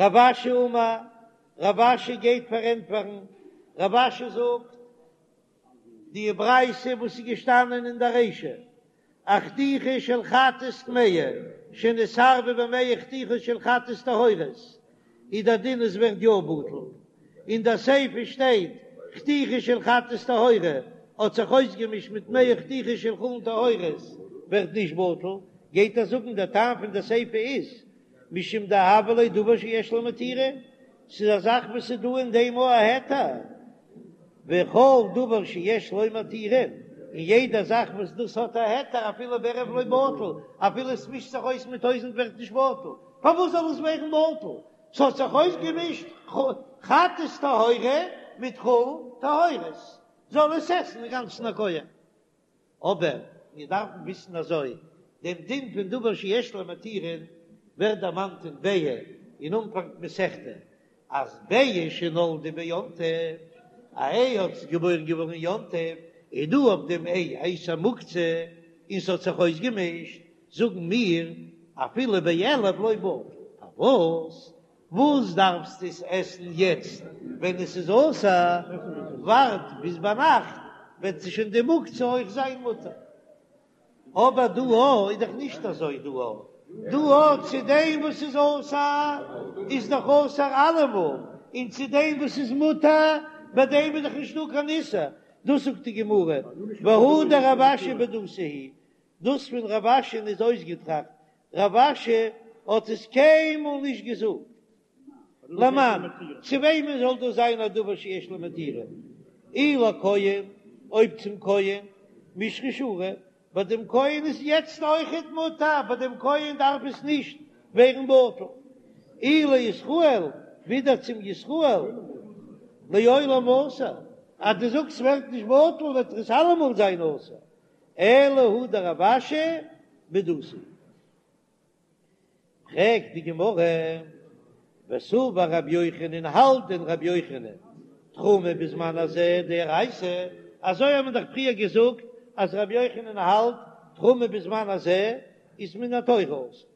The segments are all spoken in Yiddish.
רב אשי אמר, רב אשי גייט פארענטפערן, רב אשי זאגט, די ברייתא וואס איז געשטאנען אין די רישא, א חתיכה של חטאת טמאה שנתערבה במאה חתיכות של חטאת טהורות, איז דער דין עס ווערט יא בטל, אין די סיפא שטייט חתיכה של חטאת טהורה האט זיך אויסגעמישט מיט מאה חתיכות של חולין טהורות ווערט נישט בטל, גייט ער זאגן דער טעם פון די סיפא איז משום דהוה ליה דבר שיש לו מתירין, ס'איז א זאך וואס איז דא אין דעם א היתר, וכל דבר שיש לו מתירין, און יעדע זאך וואס דאס האט א היתר אפילו בערב לא בטל, אפילו עס מישט זיך אויס מיט טויזענט ווערט נישט בטל, פארוואס זאל עס ווערן בטל? ס'האט זיך אויסגעמישט חטאת טהורה מיט חולין טהורות, זאל עס עסן אינגאנצן א כהן. אבער מיר דארפן וויסן אזוי, דעם דין פון דבר שיש לו מתירין ווערט דערמאנט אין ביעה אין אנפאנג מסכתא, אז ביעה שנולדה ביום טוב, א איי האט איז געבוירן געווארן אין יום טוב, איז דא אויף דעם איי א איסור מוקצה, און ס'האט זיך אויסגעמישט, זאגן מיר אפילו באלף לא בטל, פארוואס? וואס דארפסטו עס עסן יעצט ווען עס איז אסור, ווארט ביז ביינאכט וועט שוין די מוקצה אויך זיין מותר. אבער דא א איז דאך נישט אזוי דא א, דא א צו דעם וואס איז אסור איז דאך אסור אלעמאל, און צו דעם וואס איז מותר ביי דעם איז דאך נישטא קיין איסור, דאס זאגט די גמרא והא דרב אשי בדותא היא, דאס פון רב אשי'ן איז אויסגעטראכט, רב אשי האט עס קיינמאל נישט געזאגט. למאן, צו וועמען זאל דאס זיין א דבר שיש לו מתירין? אי לכהן, אויב צום כהן, מישרא שרי, ביי דעם כהן איז יעצט אויכעט מותר, ביי דעם כהן דארף עס נישט ווערן בטל. אי לישראל, ווידער צום ישראל, לעולם אסור, אז דו זאגסט ס'ווערט נישט בטל וועט עס אלעמאל זיין אסור. אלא הא דרב אשי בדותא. פרעגט די גמרא, וסבר רבי יוחנן, האלט דען רבי יוחנן תרומה בזמן הזה דאורייתא? אזוי האט מען דאך פריער געזאגט אז רבי יוחנן האלט תרומה בזמן הזה איז מן התורה אסור.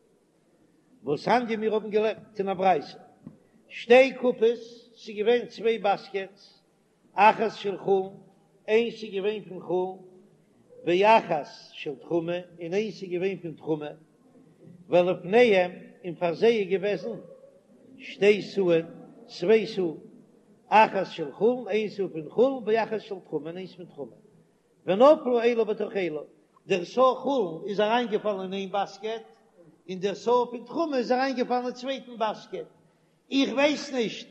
והתניא מיר האבן געלערנט אין א ברייתא שתי קופות, ס'איז געווען צוויי באסקעטס, אחת של חולין, איינס איז געווען פון חולין, ואחת של תרומה, און איינס איז געווען פון תרומה, ולפניהם, און פאר זיי איז געוועזן שתי סאין, צוויי סאה, אחת של חולין, איין סאה פון חולין, ואחת של תרומה, און איינס פון תרומה. ונפלו אלו בתוך אלו, דער סאה חולין איז אריינגעפאלן אין איין באסקעט, און דער סאה פון תרומה איז אריינגעפאלן אין צווייטן באסקעט, איך ווייס נישט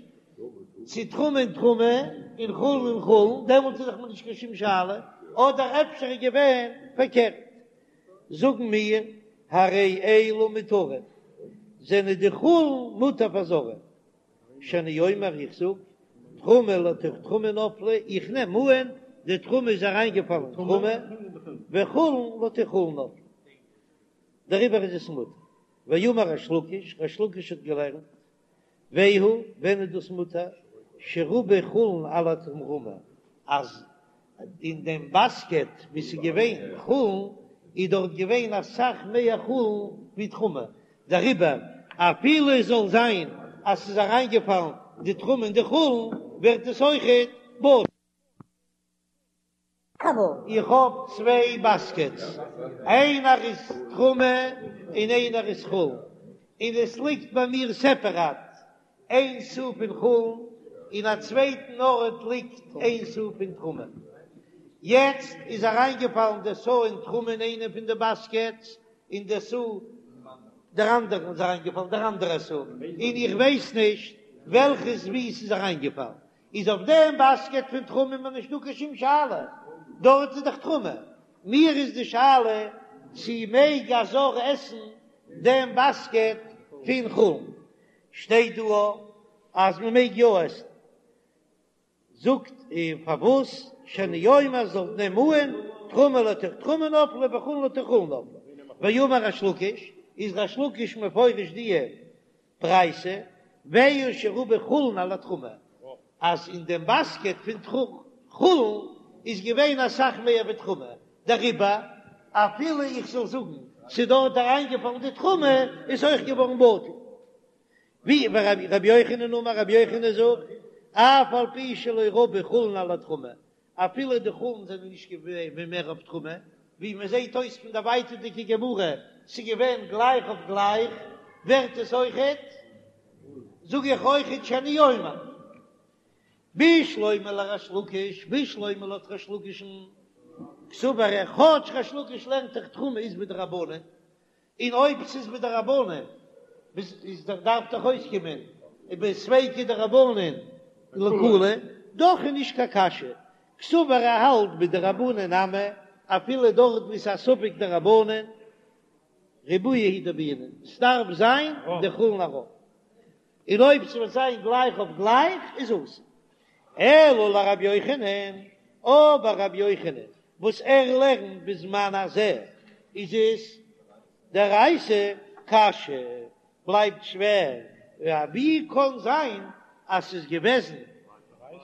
צו תרומה אין תרומה און חולין אין חולין, דעמאלט איז דאך מיר נישט קיין שום שאלה, אדער אפשר איז געווען פארקערט. זאגן מיר, הרי אלו מותרין, זענען די חולין מותר פאר זרים. שאני אומר, איך זאג, תרומה לתוך תרומה נפלה, איך נעם אן די תרומה איז אריינגעפאלן אין תרומה, וחולין לתוך חולין נפלה, דעריבער איז עס מותר. ואמר ריש לקיש, ריש לקיש האט געלערנט, והוא, ווען איז דאס מותר? שרבו חולין על התרומה, אז אין דעם באסקעט וואו ס'איז געווען חולין, איז דארט געווען אסאך מער חולין ווי תרומה, דעריבער אפילו עס זאל זיין אז ס'איז אריינגעפאלן די תרומה אין די חולין, ווערט עס אויכעט בטל. איך האב צוויי באסקעטס, איינער איז תרומה און איינער איז חולין, און עס ליגט ביי מיר סעפעראט איין סאה פון חולין, אין א צווייטן ארט ליגט איין סאה פון תרומה. יעצט איז אריינגעפאלן די סאה אין תרומה אין איינע פון די באסקעטס, און די סאה דער אנדערן איז אריינגעפאלן דער אנדערע סאה, און איך ווייס נישט וועלכעס וואו ס'איז אריינגעפאלן. איז אויף דעם באסקעט פון תרומה מיר נישט דא קיין שום שאלה, דארט איז דאך תרומה, מיר איז די שאלה צו מעג א זר עסן דעם באסקעט פון חולין, שטייט דא אז מען מעג יא עסן, זאגט ער פארוואס שאני אומר זאל נעם אן תרומה לתוך תרומה נפלה וחולין לתוך חולין נפלה, ואמר ריש לקיש, איז ריש לקיש מפרש די ברייתא, והוא שרבו חולין על התרומה, אז אין דעם באסקעט פון חולין איז געווען אסאך מער ווי תרומה, דעריבער אפילו איך זאל זאגן ס'איז דארט אריינגעפאלן די תרומה איז אויך געווארן בטל. ווי רבי יוחנן אמר רבי יוחנן זאגט, אף על פי שלא רבו חולין על התרומה, אפילו די חולין זענען נישט געווען מער אויף תרומה, ווי מען זעט אויס פון די ווייטערדיגע גמרא, ס'איז געווען גלייך אויף גלייך, ווערט עס אויכעט, זאג איך אויכעט שאני אומר. בשלמא לריש לקיש, בשלמא לויט ריש לקיש'ן, קסבר ער, כאטש ריש לקיש לערנט דאך תרומה איז מדרבנן, און אויב ס'איז מדרבנן איז דאך דארף דאך אויסקומען בספיקא דרבנן לקולא, דאך איז נישט קיין קשיא, קסבר ער האלט בדרבנן נמי, אפילו דארט וואו ס'איז א ספק דרבנן, ריבויא הוא דבעינן, ס'דארף זיין די חולין א רוב, און אויב ס'וועט זיין גלייך אויף גלייך איז אסור. אלא לרבי יוחנן, אבער רבי יוחנן וואס ער לערנט בזמן הזה איז עס דאורייתא קשיא, בלייבט שווער, ווי קען זיין אז ס'איז געוועזן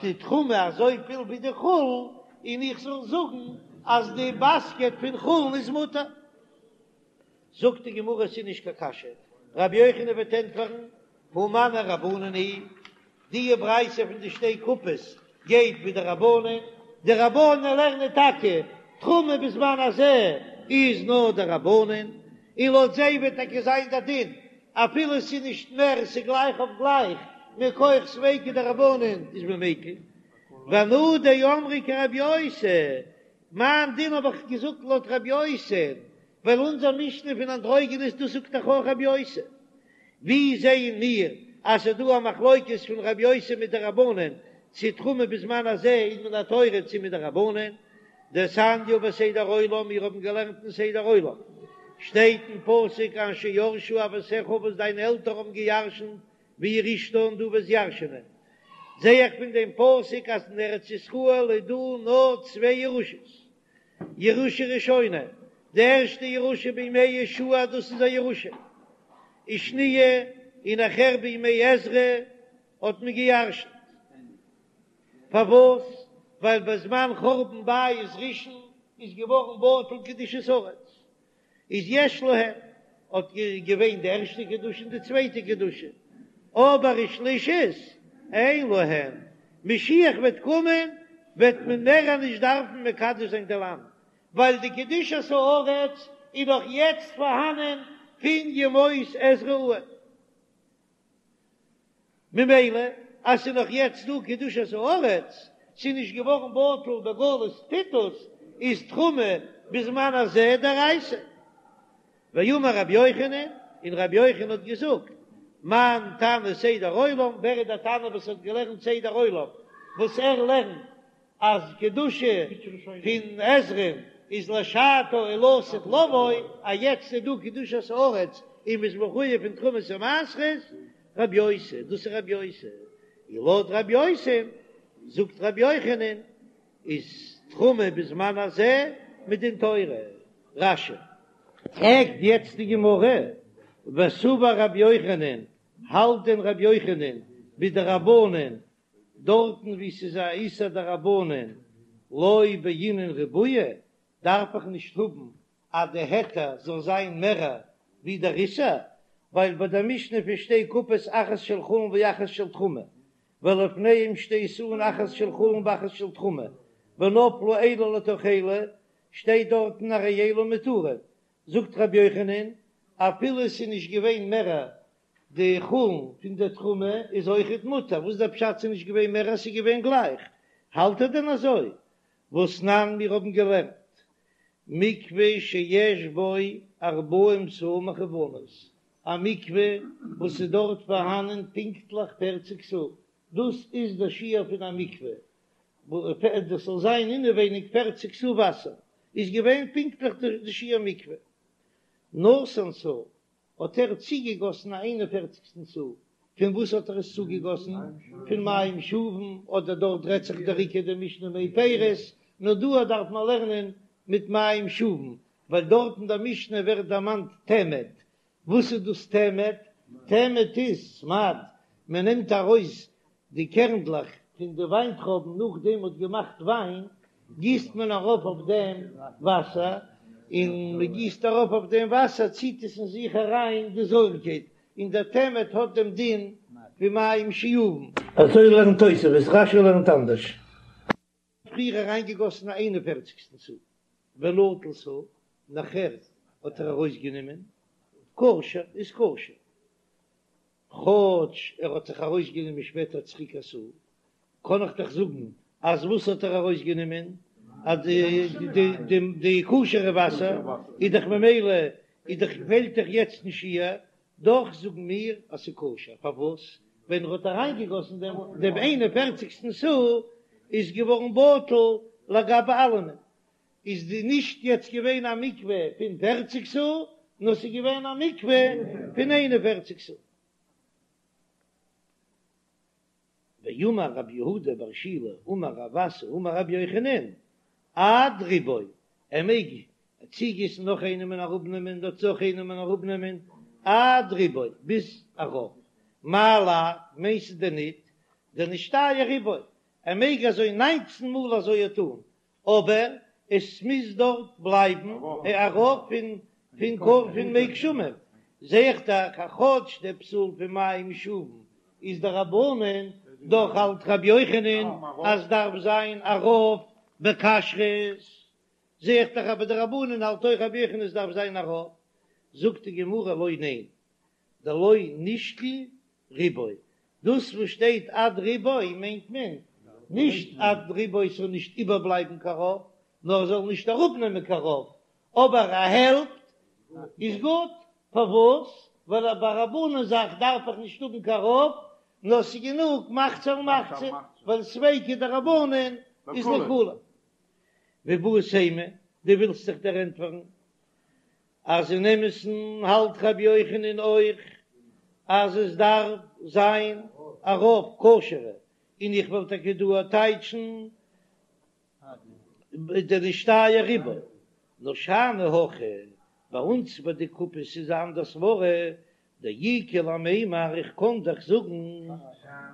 די תרומה אזויפיל ווי די חולין און איך זאל זאגן אז די באסקעט פון חולין איז מותר? זאגט די גמרא ס'איז נישט קיין קשיא, רבי יוחנן וועט ענטפערן, הא מני רבנן היא, די ברייתא פון די שתי קופות גייט ווי די רבנן, די רבנן לערנען טאקע תרומה בזמן הזה איז נאר דרבנן, און לויט זיי וועט טאקע זיין די דין אפילו ס'איז נישט מער ס'איז גלייך אויף גלייך מכח ספיקא דרבנן איז מען מיקל, ואנא דאמרי כרבי יוסי, מיין דין האב איך געזאגט לויט רבי יוסי, ווייל אונזער משנה פון אנדרוגינוס דאס זאגט דאך אויך רבי יוסי. ווי זעען מיר אז ס'איז דא א מחלוקת פון רבי יוסי מיט די רבנן צו תרומה בזמן הזה איז מן התורה צו מדרבנן? דתניא בסדר עולם, מיר האבן געלערנט אין סדר עולם, שטייט אין פסוק אשר ירשו אבותיך וואס דיינע עלטערן האבן געירשנט וירשתה און דו וועסט ירשענען. זע איך פון דעם פסוק אז אין ארץ ישראל איז דא נאר צוויי ירושות, ירושה ראשונה, די ערשטע ירושה בימי יהושע דאס איז א ירושה, ושניה, און נאכהער בימי עזרא האט מען געירשנט. פארוואס? ווייל בזמן חורבן בית ראשון איז געווארן בטל קדושת הארץ, איז יש להם האט געווען די ערשטע קדושה און די צווייטע קדושה, אבער ושלישית אין להם, משיח וועט קומען וועט מען מער נישט דארפן מקדש זיין די לאנד, ווייל די קדושת הארץ איז נאך יעצט פארהאנען פון ימות עזרא אן. ממילא אז ס'איז נאך יעצט דא קדושת הארץ, ס'איז נישט געווארן בטל בגלות טיטוס, איז תרומה בזמן הזה דאורייתא. ואמר רבי יוחנן, און רבי יוחנן האט געזאגט, מאן תנא סדר עולם, ווער איז דער תנא וואס האט געלערנט סדר עולם, וואס ער לערנט אז קדושה פון עזרא'ן איז לשעתה ולעתיד לבוא, אז יעצט איז דא קדושת הארץ און מ'איז מחויב פון תרומות ומעשרות, רבי יוסי, דאס איז רבי יוסי, און לויט רבי יוסי זאגט רבי יוחנן איז תרומה בזמן הזה מדין תורה. רש"י. פרעגט יעצט די גמרא, וסבר רבי יוחנן, האלט דען רבי יוחנן בדרבנן דארטן וואו ס'איז א איסור דרבנן לא בעינן ריבויא, דארף איך נישט האבן אז די היתר זאל זיין מערער ווי דער איסור, ווייל ביי דער משנה פון שתי קופות אחת של חולין ואחת של תרומה, ולפניהם שתי סאין אחת של חולין ואחת של תרומה, ונפלו אלו לתוך אלו, שטייט דארטן הרי אלו מותרין, זאגט רבי יוחנן, אפילו ס'איז נישט געווען מערער די חולין פון די תרומה איז אויכעט מותר, וואס דער פשט ס'איז נישט געווען מער אז ס'איז געווען גלייך? האלט ער דען אזוי? והתנן מיר האבן געלערנט מקווה שיש בו ארבעים סאה מכוונות, א מקווה וואס איז דארט פארהאנען פונקטליך פערציג סאה, דאס איז דער שיעור פון א מקווה, דאס זאל זיין אינעווייניג פערציג סאה וואסער, איז געווען פונקטליך די שיעור מקווה. נתן סאה האט ער צוגעגאסן א איין און פערציגסטן סאה, פון וואס האט ער עס צוגעגאסן? פון מים שאובין, אדער דארט רעדט זיך דער עיקר די משנה מי פירות, נאר דא דארף מען לערנען מיט מים שאובין, ווייל דארט אין דער משנה ווערט דערמאנט תמד, וואס איז דאס תמד? תמד איז סמד, מען נעמט ארויס די קערנדלעך פון די וויינטרויבן נאכדעם מ'האט געמאכט וויין, גיסט מען ארויף אויף דעם וואסער, און מען גיסט ארויף אויף דעם וואסער ציט עס אין זיך אריין די זויערקייט. און דער תמד האט דעם דין ווי מים שאובין. אזוי לערנט תוספות, רש"י לערנט אנדערש. פריער אריינגעגאסן א איין און פערציגסטן סאה, ונטל סאה, נאכער האט ער ארויסגענומען, כשר איז כשר, כאטש ער האט זיך ארויסגענומען שפעטער צוריק א סאה, קען איך דאך זאגן אז וואס האט ער ארויסגענומען? אז די די כשר'ע וואסער איז דאך ממילא איז דאך פעלט דאך יעצט נישט שיעור, דאך זאגן מיר אז ס'איז כשר, פארוואס? ווען ער האט אריינגעגאסן דעם דעם איין און פערציגסטן סאה איז געווארן בטל לגבי אלעמען, איז די נישט יעצט געווען א מקווה פון פערציג סאה, נאר ס'איז געווען א מקווה פון איין און פערציג סאה. ואמר רב יהודה בר שילא אמר רב אסי אמר רבי יוחנן, עד רובו, ער מעג צוגיסן נאך איינעם און אראפנעמען דארט נאך איינעם און אראפנעמען, עד רובו, ביז א רוב, מאי לאו, מיינסטו דען ניט, דנשתייר רובו, ער מעג אזוי ניינצן מאל אזוי טאן, אבער עס מוז דארט בלייבן א רוב פון פון קור פון מי גשמים, זע איך דאך אז כאטש דער פסול פון מים שאובין איז דרבנן, דאך האלט רבי יוחנן אז דארף זיין א רוב בכשרות, זע איך דאך אז ביי דרבנן האלט אויך רבי יוחנן עס דארף זיין א רוב, זאגט די גמרא לא ניין, דלא נשקיל רובו, דאס וואס שטייט עד רובו מיינט מען נישט עד רובו ס'זאל נישט איבערבלייבן קיין רוב, נאר עס זאל נישט אראפנעמען קיין רוב, אבער א העלפט איז גוט, פארוואס? ווייל ביי א דרבנן זאך דארף איך נישט האבן קיין רוב, נאר ס'איז גענוג מחצה על מחצה, ווייל ספיקא דרבנן איז לקולא. ואיבעית אימא, דו ווילסט זיך דערענטפערן אז אין אמת'ן האלט רבי יוחנן אויך אז עס דארף זיין א רוב כשר'ע, און איך וועל טאקע דא טייטשן דנשתייר רובו, נאר שאני הכא, ביי אונז ביי די קופות איז א אנדער סברא, דאיכא למימר איך קען דאך זאגן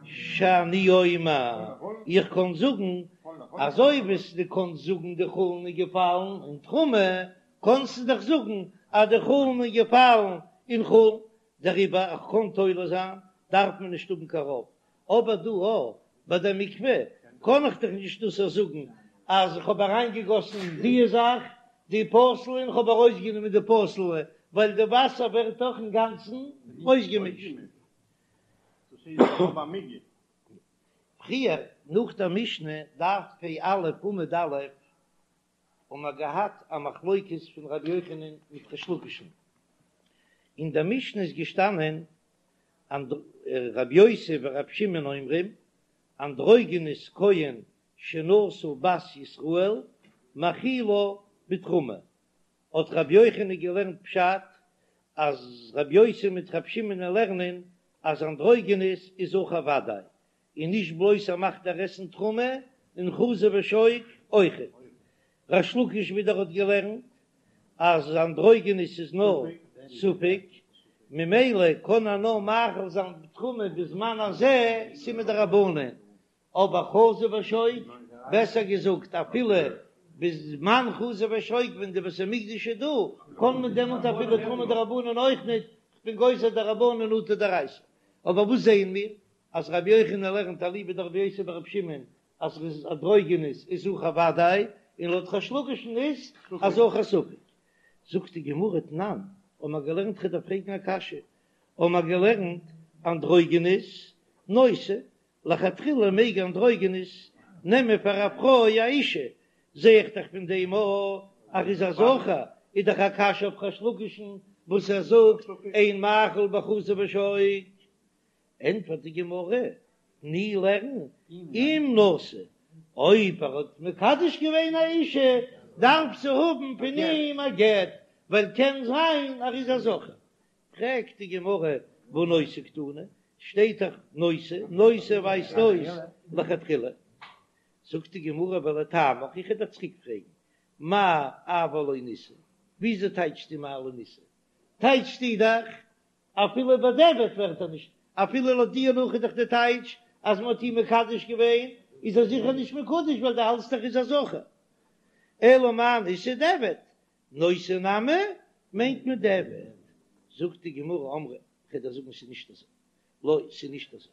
שאני אומר, איך קען זאגן אזוי ווי דו קענסט זאגן די חולין איז געפאלן אין תרומה, קענסטו דאך זאגן אז די חולין איז געפאלן אין חולין, דעריבער איך קען תולה זיין דארף מען נישט האבן קיין רוב, אבער דא א ביי די מקווה קען איך דאך נישט דאס זאגן אז איך האב אריינגעגאסן די זאך די פסול'ע און איך האב ארויסגענומען די פסול'ע ווייל די וואסער ווערט דאך אינגאנצן אויסגעמישט. פריער נאך דער משנה דף פ"א עמוד א' האבן מיר געהאט א מחלוקת פון רבי יוחנן מיט ריש לקיש'ן, אין דער משנה איז געשטאנען רבי יוסי ורבי שמעון אומרים, אנדרוגינוס כהן שנשא בת ישראל מאכילה בתרומה, האט רבי יוחנן געלערנט פשט אז רבי יוסי מיט רבי שמעון לערנען אז אנדרוגינוס איז זכר ודאי, און נישט בלויז ער מאכט איר עסן תרומה, און חזה ושוק אויכעט. ריש לקיש ווידער האט געלערנט אז אנדרוגינוס איז נאר ספק, ממילא קען ער נאר מאכיל זיין בתרומה בזמן הזה ס'איז מדרבנן, אבער חזה ושוק, בעסער געזאגט אפילו בזמן חזה ושוק ווען די בית המקדש איז דא, קען מען דעמאלט אפילו תרומה דרבנן אויך ניט, כ'בין גוזר דרבנן אטו דאורייתא. אבער וואס זעען מיר? אז רבי יוחנן לערנט אליבא דרבי יוסי ברבי שמעון אז ר'איז אנדרוגינוס איז זכר ודאי, און לויט ריש לקיש'ן איז א זכר ספק. זאגט די גמרא תנן, האבן מיר געלערנט כ'דארף פרעגן א קשיא, האבן מיר געלערנט אנדרוגינוס נושא, לכתחילה מעג אנדרוגינוס נעמען פאר א פרוי א אישה, זע איך דאך פון דעם א אז ר'איז א זכר, איז דאך א קשיא אויף ריש לקיש'ן וואס ער זאגט אין מאכיל בחזה ושוק. ענטפערט די גמרא, תני לערן, אם נשא, אויב ער האט מקדש געווען א אישה, דארף זי האבן פון אים א גט, ווייל קען זיין ער איז א זכר. פרעגט די גמרא, והא נושא קתני, שטייט דאך נושא, נושא ווייזט אויס לכתחילה. זאגט די גמרא, ולטעמיך, איך וועל דיר צוריק פרעגן, מאי אבל לא נישא, וויאזוי טייטשסטו מאי לא נישא? טייטשסטו דאך אפילו בדיעבד ווערט ער נישט, אפילו לויט דיר נאך איז דאך די טייטש אז מען האט אים מקדש געווען, איז ער זיכער נישט מקודש ווייל דו האלטסט דאך איז א זכר. אלא מאי נישא דיעבד, נושא נמי מיינט מען דיעבד. זאגט די גמרא אמרי. כ'וועל דיר זאגן ס'איז נישט אזוי. לא, ס'איז נישט אזוי.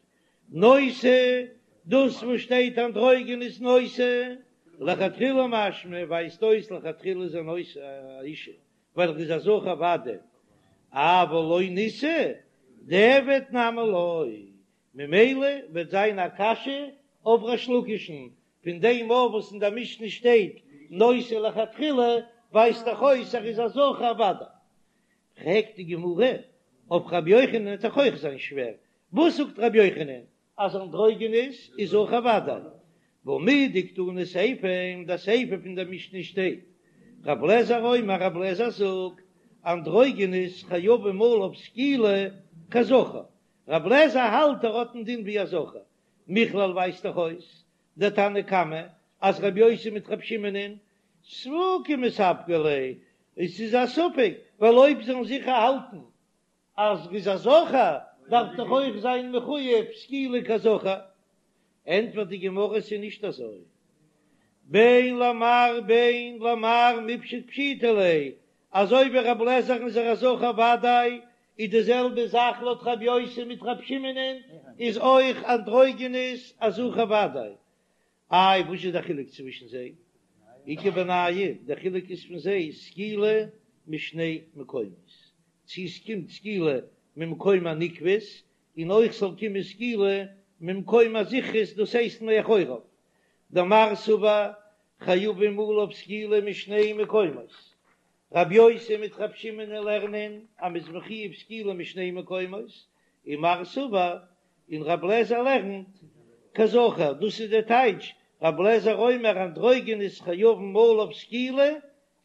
נושא, דאס וואס שטייט אנדרוגינוס נושא, לכתחילה משמע, ווייזט אויס לכתחילה איז ער נושא א אישה, ווייל ער איז א זכר ודאי, אבל לא נישא, דיעבד נמי לא, ממילא וועט זיין א קשיא אויף ריש לקיש'ן, פון דעם אויף וואס אין דער משנה שטייט נושא לכתחילה, ווייזט דאך אויס ער איז א זכר ודאי. פרעגט די גמרא, אויף רבי יוחנן וועט דאך אויך זיין שווער, וואס זאגט רבי יוחנן אז אנדרוגינוס איז זכר ודאי, והא מדקתני סיפא, אין די סיפא פון די משנה שטייט, רב לעזער אומר רב לעזער זאגט, אנדרוגינוס חייבים עליו סקילה כזכר, רב לעזער האלט ער האט א דין ווי א זכר, מכלל ווייזט דאך אויס דתנא קמא אז רבי יוסי מיט רבי שמעונ'ען ספוקי מספקא ליה, עס איז א ספק, ווייל אויב זאלן זיכער האלטן אז ר'איז א זכר דארף דאך אויך זיין מחויב סקילה כזכר, ענטפערט די גמרא ס'איז נישט אזוי, בין למר בין למר מיפשט פשיטא ליה, אזוי ווי רב לעזער'ן איז ער א זכר ודאי, איז די זעלבע זאך לויט רב יוסי מיט רב שמעונ'ען איז אויך אנדרוגינוס א זכר ודאי. איי וואס איז די חילוק צווישן זיי? איכא בינייהו, די חילוק איז פון זיי סקילה משני מקומות, צו עס קומט סקילה ממקום הנקבות, און אויך זאל קומען סקילה ממקום הזכרות דאס הייסט מאחוריו, דמר סבר חייבים עליו סקילה משני מקומות, רבי יוסי מיט רבי שמעון לערנען אז מ'איז מחויב סקילה משני מקומות, און מר סבר און רבי אליעזר לערנט כזכר, דאס איז די טייטש, רבי אליעזר אומר אנדרוגינוס חייבים עליו סקילה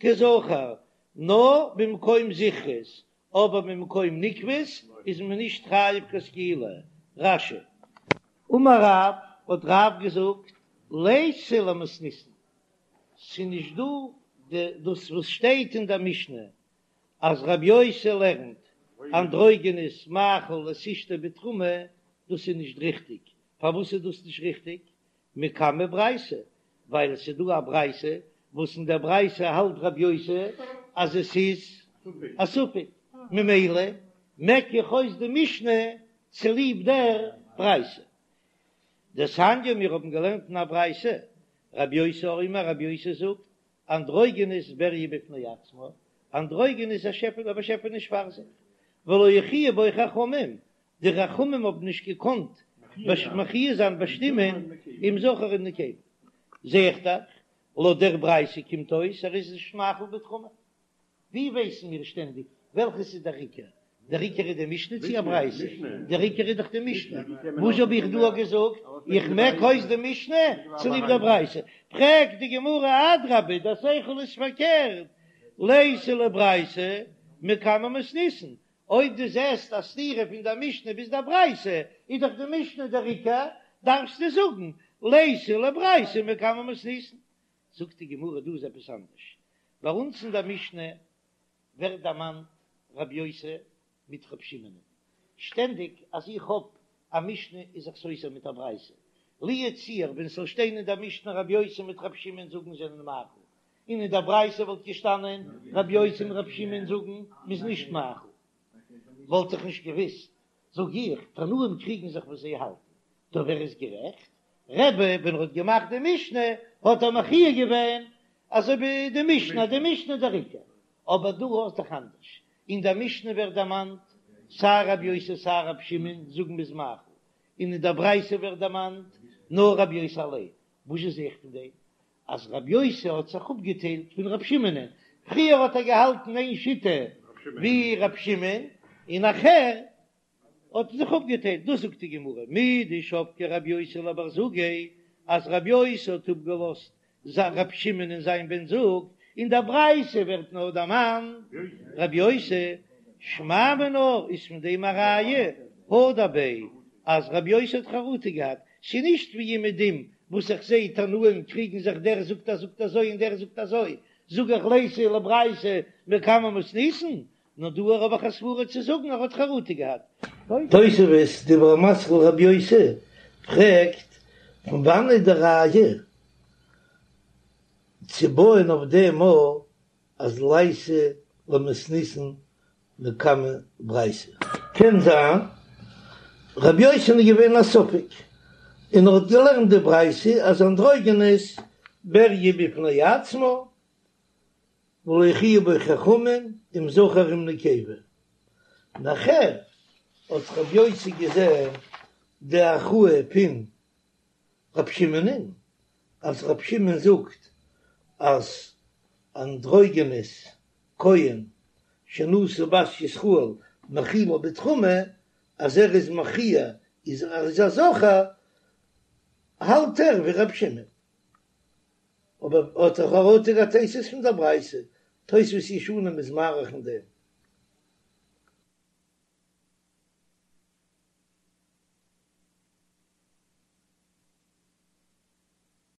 כזכר, נאר במקום זכרות, אבער במקום נקבות איז מען נישט חייב קיין סקילה. רש"י. אמר רב, האט רב געזאגט, ליתא למתניתין, ס'איז נישט דא די דאס וואס שטייט אין דער משנה אז רבי יוסי לערנט אנדרוגינוס מאכיל את אשתו בתרומה, דאס איז נישט ריכטיג, פארוואס איז דאס נישט ריכטיג? מקמי ברייתא, ווייל עס איז דא א ברייתא וואס אין דער ברייתא האלט רבי יוסי אז עס איז א ספק, ממילא מעק איך אויס די משנה צוליב דער ברייתא. דתניא, מיר האבן געלערנט אין א ברייתא, רבי יוסי אומר, רבי יוסי זאגט, אנדרוגינוס בריה בפני עצמה, אנדרוגינוס איז א שעפעלע, א באשעפעניש פאר זיך, ולא הכריעו בו חכמים, די חכמים האבן נישט געקאנט מכריע זיין באשטימען אם זכר אם נקבה. זע איך דאך, לויט דער ברייתא קומט אויס ער איז נישט מאכיל בתרומה. ווי ווייסן מיר שטענדיג וועלכעס איז דער עיקר? דער עיקר איז די משנה צי א ברייתא? דער עיקר איז דאך די משנה. וואס האב איך דא געזאגט? איך מעק אויס די משנה צוליב דער ברייתא. פרעגט די גמרא, אדרבה, דער שכל איז פארקערט, ליתא לברייתא מקמי מתניתין, אויב דו זעסט א סתירה פון דער משנה ביז דער ברייתא, איז דאך די משנה דער עיקר, דארפסטו זאגן ליתא לברייתא מקמי מתניתין. זאגט די גמרא דא איז עפעס אנדערש, ביי אונז אין דער משנה ווערט דערמאנט רבי יוסי מיט רבי שמעון, שטענדיג אז איך האב א משנה איז זיך סותר מיט א ברייתא, לו יצוייר ווען ס'זאל שטיין אין דער משנה רבי יוסי מיט רבי שמעון זאגן זענען מאכיל, און אין דער ברייתא וואלט געשטאנען רבי יוסי און רבי שמעון זאגן מ'איז נישט מאכיל, וואלט איך נישט געוויסט, זאג איך, תנאים קריגן זיך וואס זיי האלטן, טא ווער איז גערעכט? רבי ווען ער האט געמאכט די משנה האט ער מכריע געווען אזוי ווי די משנה, די משנה איז דער עיקר, אבער דא האסט דאך אנדערש, אין דער משנה ווערט דערמאנט סיי רבי יוסי סיי רבי שמעון זאגן מ'איז מאכיל, און אין דער ברייתא ווערט דערמאנט נאר רבי יוסי אליין, וואס זע איך פון דעם? אז רבי יוסי האט זיך אפגעטיילט פון רבי שמעונ'ען, פריער האט ער געהאלטן איין שיטה ווי רבי שמעון, און נאכער האט ער זיך אפגעטיילט, דאס זאגט די גמרא, מדשבקיה רבי יוסי לבר זוגיה, אז רבי יוסי האט אפגעלאזט רבי שמעון און זיין בן זוג, אין דער ברייתא ווערט נאר דערמאנט רבי יוסי, שמע מינה איז פון דעם א ראיה, הדר ביה, אז רבי יוסי האט חרטה געהאט, ס'איז נישט ווי אומעדום וואס איך זע תנאים קריגן זיך דער זאגט אז זאגט אזוי און דער זאגט אזוי, זאג איך ליתא לברייתא מקמי מתניתין, נאר דא האב איך א סברה צו זאגן ער האט חרטה געהאט. תוספות, דיבור המתחיל רבי יוסי, פרעגט, פון וואנעט איז די ראיה צו בויען אויף דעם א אז ליתא למתניתין מקמי ברייתא? קען זיין רבי יוסי'ן איז געווען א ספק, און ער האט געלערנט די ברייתא אז אנדרוגינוס בריה בפני עצמה ולא הכריעו בו חכמים אם זכר אם נקבה. נאכער האט רבי יוסי געזען די הכרעה פון רבי שמעונ'ען, אז רבי שמעון זאגט אז אנדרוגינוס כהן שנשא בת ישראל מאכילה בתרומה, אז ער איז מכריע איז ער איז א זכר, האלט ער ווי רבי שמעון. אבער האט ער חרטה געהאט תוספות פון דער ברייתא, תוספות ישנים איז מאריך אין דעם.